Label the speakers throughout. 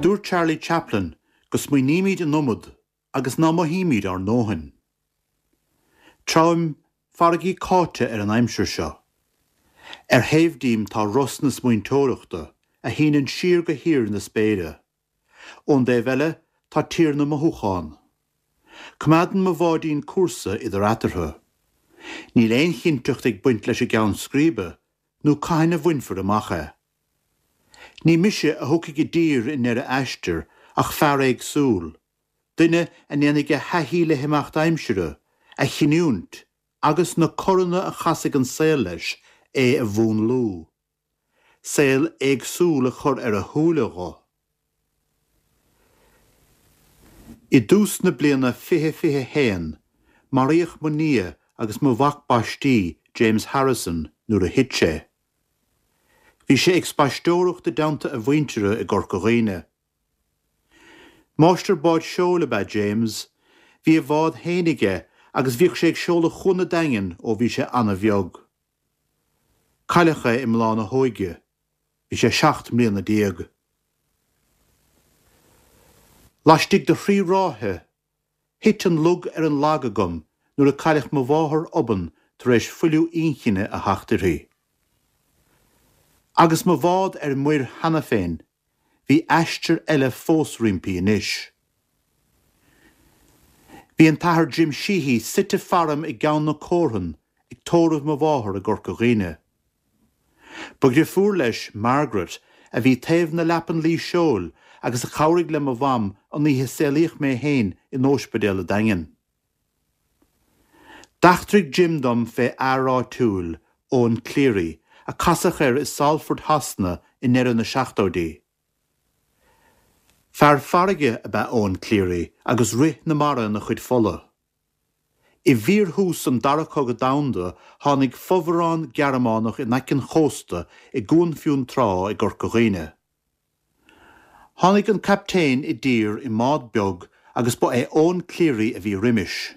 Speaker 1: Dúirt Charlie Chaplin go smaoinímid an iomad agus ná mothaímid ár ndóthain. Treabhaim farraigí cáite ar an aimsir seo. Ar thaobh díom tá ros na smaointeoireachta, a shíneann siar go thír na spéire. Ón dtaobh eile tá tír na mothúchán. Coimeádann mo bháidín cúrsa idir eatarthu. Níl aon chinnteacht ag baint leis an gceann scríbe, nó cathain a bhainfear amach é. Ní mise a thiocfaidh i dtír i ndeireadh aistir ach fear éagsúil, duine a ndéanfaidh a thaithí le himeacht aimsire, a chinniúint agus na coranna a chasfaidh an saol leis, é a mhúnlú. Saol éagsúil a chur ar a shúile dho. I dtús na bliana 2021, maraíodh mo nia agus mo mhac baistí, James Harrison, nuair a thit sé. Bhí sé ag spaisteoireacht i dteannta a mhuintire i gCorca Dhuibhne. Máistir báid seoil ab ea James. Bhí a bhád féin aige agus bhíodh sé ag seoladh Chuan an Daingin ó bhí sé ana-bheag. Cailleadh é i mbláth na hóige. Bhí sé 17 mbliana. Laistigh de thrí ráithe, Thit an lug ar an lag agam nuair a cailleadh mo mháthair obann tar éis fuiliú inchinne a theacht uirthi. Agus mo bhád ar muir cheana féin, bhí aistear eile fós roimpi anois. Bhí an tAthair Jim Sheehy suite faram i gCeann na Cómhran ag tórramh mo mháthar i gCorca Dhuibhne. Ba dhrifiúr leis Margaret, a bhí taobh na leapan luí seoil agus a chabhraigh le mo mham an oíche a saolaíodh mé féin in óispidéal a' Daingin. D'eachtraigh Jim dom fé fhear áitiúil, Eoin Cleary, a casadh air i Salford Shasana i ndeireadh na seachtóidí. Fear farraige ab ea Eoin Cleary agus rith na mara ina chuid fola. I bhfíorthús an Dara Cogadh Domhanda tháinig fomhuireán Gearmánach in aice an chósta i gCuan Fionntrá i gCorca Dhuibhne. Tháinig an captaen i dtír i mbád beag agus ba é Eoin Cleary a bhí roimis.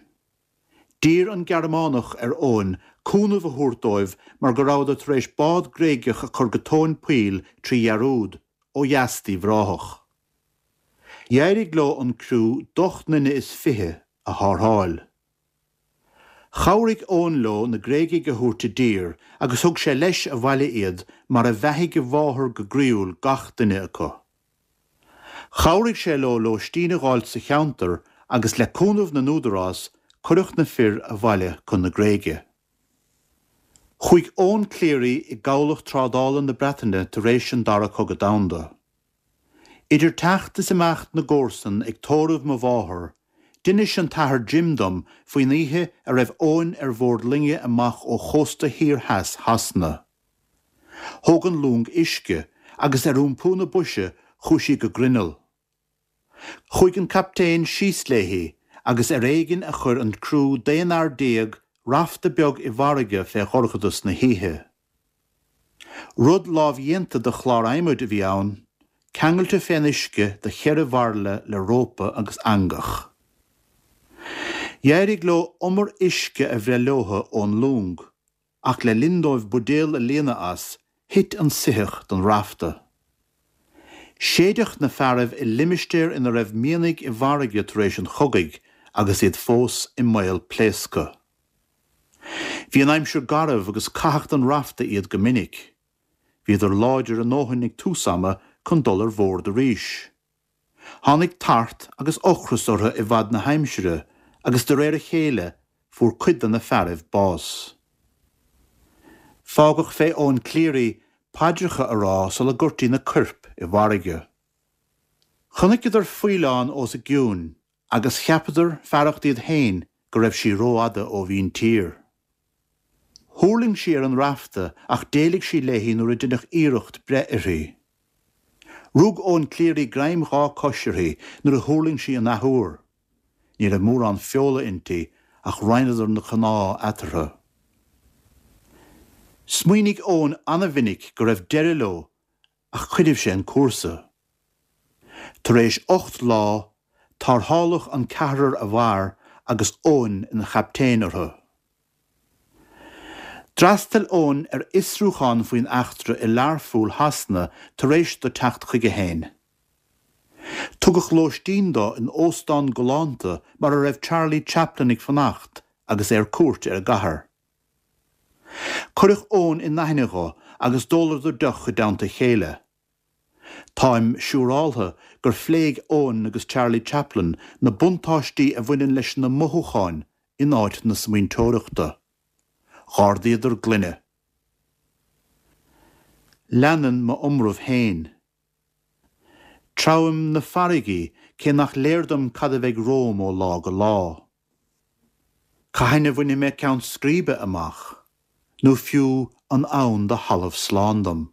Speaker 1: D'iarr an Gearmánach ar Eoin cúnamh a thabhairt dóibh mar go rabhadar tar éis bád Gréigeach a chur go tóin poill trí dhearúd, ó dheas d'Uíbh Ráthach. D'éirigh leo an criú d'ocht nduine is fiche a tharrtháil. Chabhraigh Eoin leo na Gréigigh a thabhairt i dtír agus thug sé leis abhaile iad mar a bheathaigh a mháthair go groíúil gach duine acu. Chabhraigh sé leo lóistín a dh'fháilt sa cheantar agus le cúnamh na n-údarás cuireadh na fir abhaile chun na Gréige. Chuaigh Eoin Cleary i gCabhlach Trádála na Breataine tar éis an Dara Cogadh Domhanda. Idir teacht is imeacht na gcomharsan ag tórramh mo mháthar, d'inis an tAthair Jim dom faoin oíche a raibh Eoin ar bhord loinge amach ó chósta thiar theas Shasana. Thóg an long uisce agus ar iompú na boise chuaigh sí go grinneall. Chuaigh an captaen síos léi agus ar éigin a chuir an criú d'aon fhear rafta beag i bhfarraige fé dhorchadas na hoíche. Rud lámhdhéanta de chlár adhmaid a bhí ann, ceangailte fén uisce de cheithre bhairille le rópa agus eangach. D'éirigh leo umar uisce a bhreith leothu ón long, ach le linn dóibh buidéal a líonadh as, thit an soitheach den rafta. Séideadh na fearaibh i limistéar ina raibh mianaigh i bhfarraige tar éis an chogaidh agus iad fós i mbaol pléasctha. Bhí an aimsir garbh agus caitheadh den rafta iad go minic. Bhíodar láidir a ndóthain ag tús ama chun dul ar bhord arís. Tháinig tart agus ocras orthu i bhfad na haimsire agus de réir a chéile fuair cuid de na fearaibh bás. Fágadh fé Eoin Cleary paidreacha a rá sula gcuirtí na coirp i bhfarraige. Chonaiceadar faoileán os a gcionn agus cheapadar, fearacht iad féin, go raibh sí rófhada ó mhíntír. Thuirling sí ar an rafta ach d'éalaigh sí léi nuair a deineadh iarracht breith uirthi. Rug Eoin Cleary greim dhá cois uirthi nuair a thuirling sí an athuair. Ní raibh mórán feola inti ach roinneadar na cnámha eatarthu. Smaoinigh Eoin ana-mhinic go raibh deireadh leo ach choinnibh sé an cúrsa. Tar éis 8 lá, tarrtháladh an ceathrar a mhair agus Eoin ina chaptaen orthu. D'fhreastail Eoin ar fhiosrúchán faoin eachtra i Learpholl Shasana tar éis do teacht chuige féin. Tugadh lóistín dó in óstán galánta mar a raibh Charlie Chaplin ag fanacht agus é ar cuairt ar an gcathair. Cuireadh Eoin in aithne dho agus d'óladar deoch i dteannta a chéile. Táim siúráltha gur phléigh Eoin agus Charlie Chaplin na buntáistí a bhaineann leis na mothúcháin in áit na smaointeoireachta. Dh'ardaíodar gloine. Leanann m'iomramh féin. Treabhaim na farraigí cé nach léir dom cad a bheidh romham ó lá go lá. Cathain a bhainfidh mé ceann scríbe amach, nó fiú an ann do thalamh slán dom?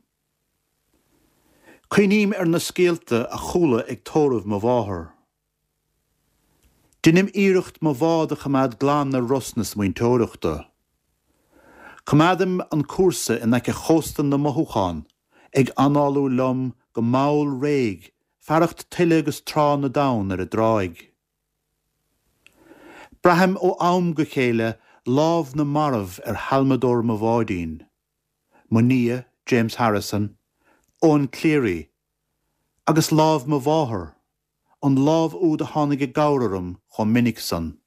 Speaker 1: Cuimhním ar na scéalta a chuala ag tórramh mo mháthar. Deinim iarracht mo bhád a choimeád glan ar ros na smaointeoireachta. Coimeádaim an cúrsa in aice chósta na mothúchán, ag análú liom go mall réidh fearacht tuile agus trá na dtonn ar an dtráigh. Braithim ó am go chéile lámh na marbh ar halmadóir mo bháidín. Mo nia, James Harrison, Eoin Cleary, agus lámh mo mháthar, an lámh úd a tháinig i gcabhair orm chomh minic san.